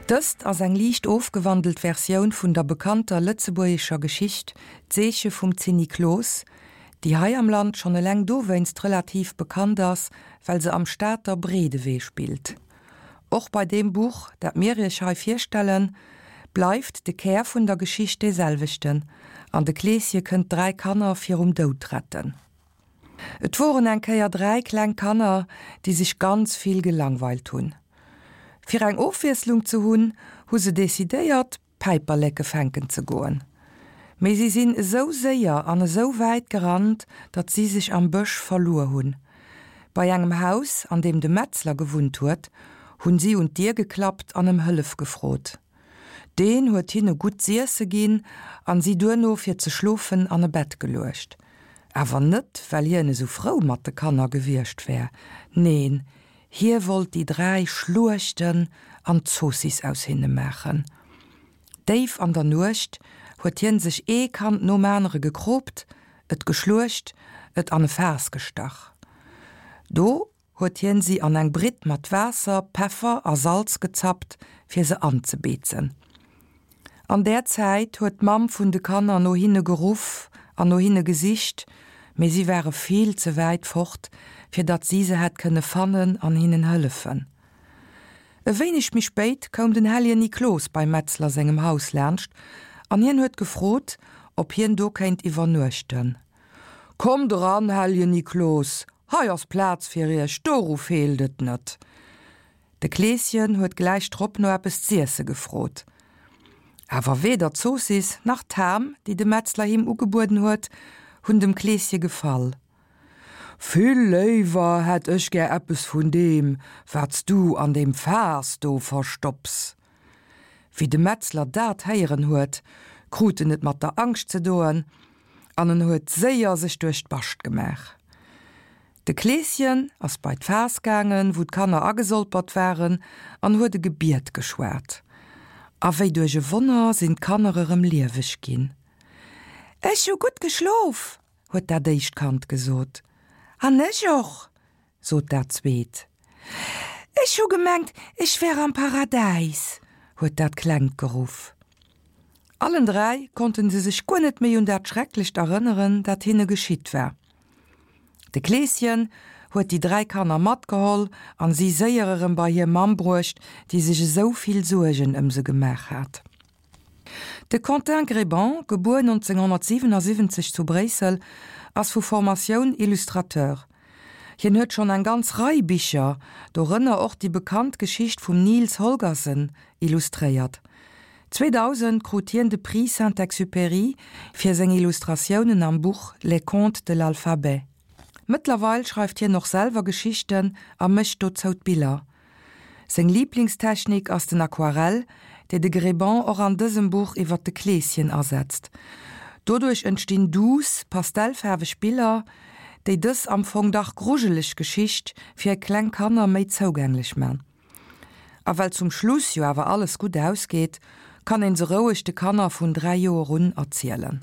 Dëst ass eng liicht ofgewandelt Versioun vun der bekannter lëtzebuergescher Geschicht D'Seeche vum Zinniklos, déi hei am Land schonn eleng dowéinst relativ bekannt ass, well se am Stater Breedewee spillt. Och bei deem Buch, dat mir iech hei virstellen, bleift de Kär vun der Geschicht dee selwechten, an de Kleeschen kënnt 3 Kanner virum Doud retten. Et woren eng Kéier 3 kleng Kanner, déi sech ganz vill gelangweilt hunn. Fir eng Ofwiesslung ze hunn, hu se decidéiert, Päiperleke fänken ze goen. Mee si sinn esou séier an esou wäit gerannt, datt si sech am Bësch verluer hunn. Bei engem Haus, an deem de Metzler gewunnt huet, hunn si un d'Dier geklappt an ëm Hëllef gefrot. Deen huet hinne gutt z'iesse ginn an si duerno fir ze schlofen an e Bett geluecht. Awer net, well hien esou frou mat de Kanner gewiescht wär, neen, hie wollt déi 3 schluechten an Zoossiss aus hinne maachen. Déif an der Nuecht huet hien sech ee Kand nom anere gekroopt, et geschluecht, et an e Faass gestach. Do huet hien si an eng Britt mat Waasser, Peffer a Salz gezappt, fir se anzebeezen. An där Zäit huet d'Mamm vun de Kanner no hinne geruff an no hinne gesicht, mee si ware vill ze wäit fort, fir datt si se hätt kënne fannen an hinnen hëllefen. E wéineg méi spéit koum den Helljen Niklos beim Metzler sengem Haus laanscht an hien huet gefrot, ob hien do kéint iwwernuechten. Kommt eran, Helljen Niklos, hei ass Plaz fir iech, doru feelt et net. De Kleeschen huet gläich drop no eppes z'iesse gefrot. Awer weder d'Zoossiss nach d'Ham, déi de Metzler him ugebueden huet, hunn dem Kleesche gefall. Vill léiwer hätt ech gär eppes vun deem, wat s du an deem Faass do verstopps. Wéi de Metzler dat héieren huet, krut en et mat der Angscht ze doen an en huet séier sech duerch d'Bascht gemaach. De Kleeschen ass bei d'Faass gaangen, wou d'Kanner agesolpert waren, an huet e Gebiet geschwat. A wéi duerch e Wonner sinn d'Kanner erëm lieweg ginn. Ech hu gutt geschlof, huet dat éischt Kand gesot. An ech och, sot dat zweet. Ech hu gemengt, ech wär am Paradäis, huet dat Klengt geruff. Allen 3 konnten se sech guer net méi un dat Schrecklecht erënneren, dat hinne geschitt war. De Kleeschen huet déi 3 Kanner matgeholl an si séier erëm bei hir Mamm bruecht, déi sech esou vill Suergen ëm se gemaach hat. De Quentin Gréban, gebuer 1977 zu Bréissel, ass vu Formatioun Illustrateur. Hien huet schonn eng ganz Rei Bicher, dorënner och déi bekannt Geschicht vum Nils Holgersen, illustréiert. 2000 krut hien de Prix Saint-Exupéry fir seng Illustratiounen am Buch Les contes de l'alphabet. Mëttlerweil schreift hien och selwer Geschichten a mécht dozou d'Biller. Seng Liiblingstechnik ass den Aquarell, déi de Gréban och an dësem Buch iwwer de Kleeschen asetzt. Doduerch entstinn duuss, pastellfaarweg Biller, déi dës am Fong dach grujeleg Geschicht fir kleng Kanner méi zougänglech man. A well zum Schluss jo awer alles gutt ausgeet, kann een se roueg de Kanner vun 3 Joer un erzielen.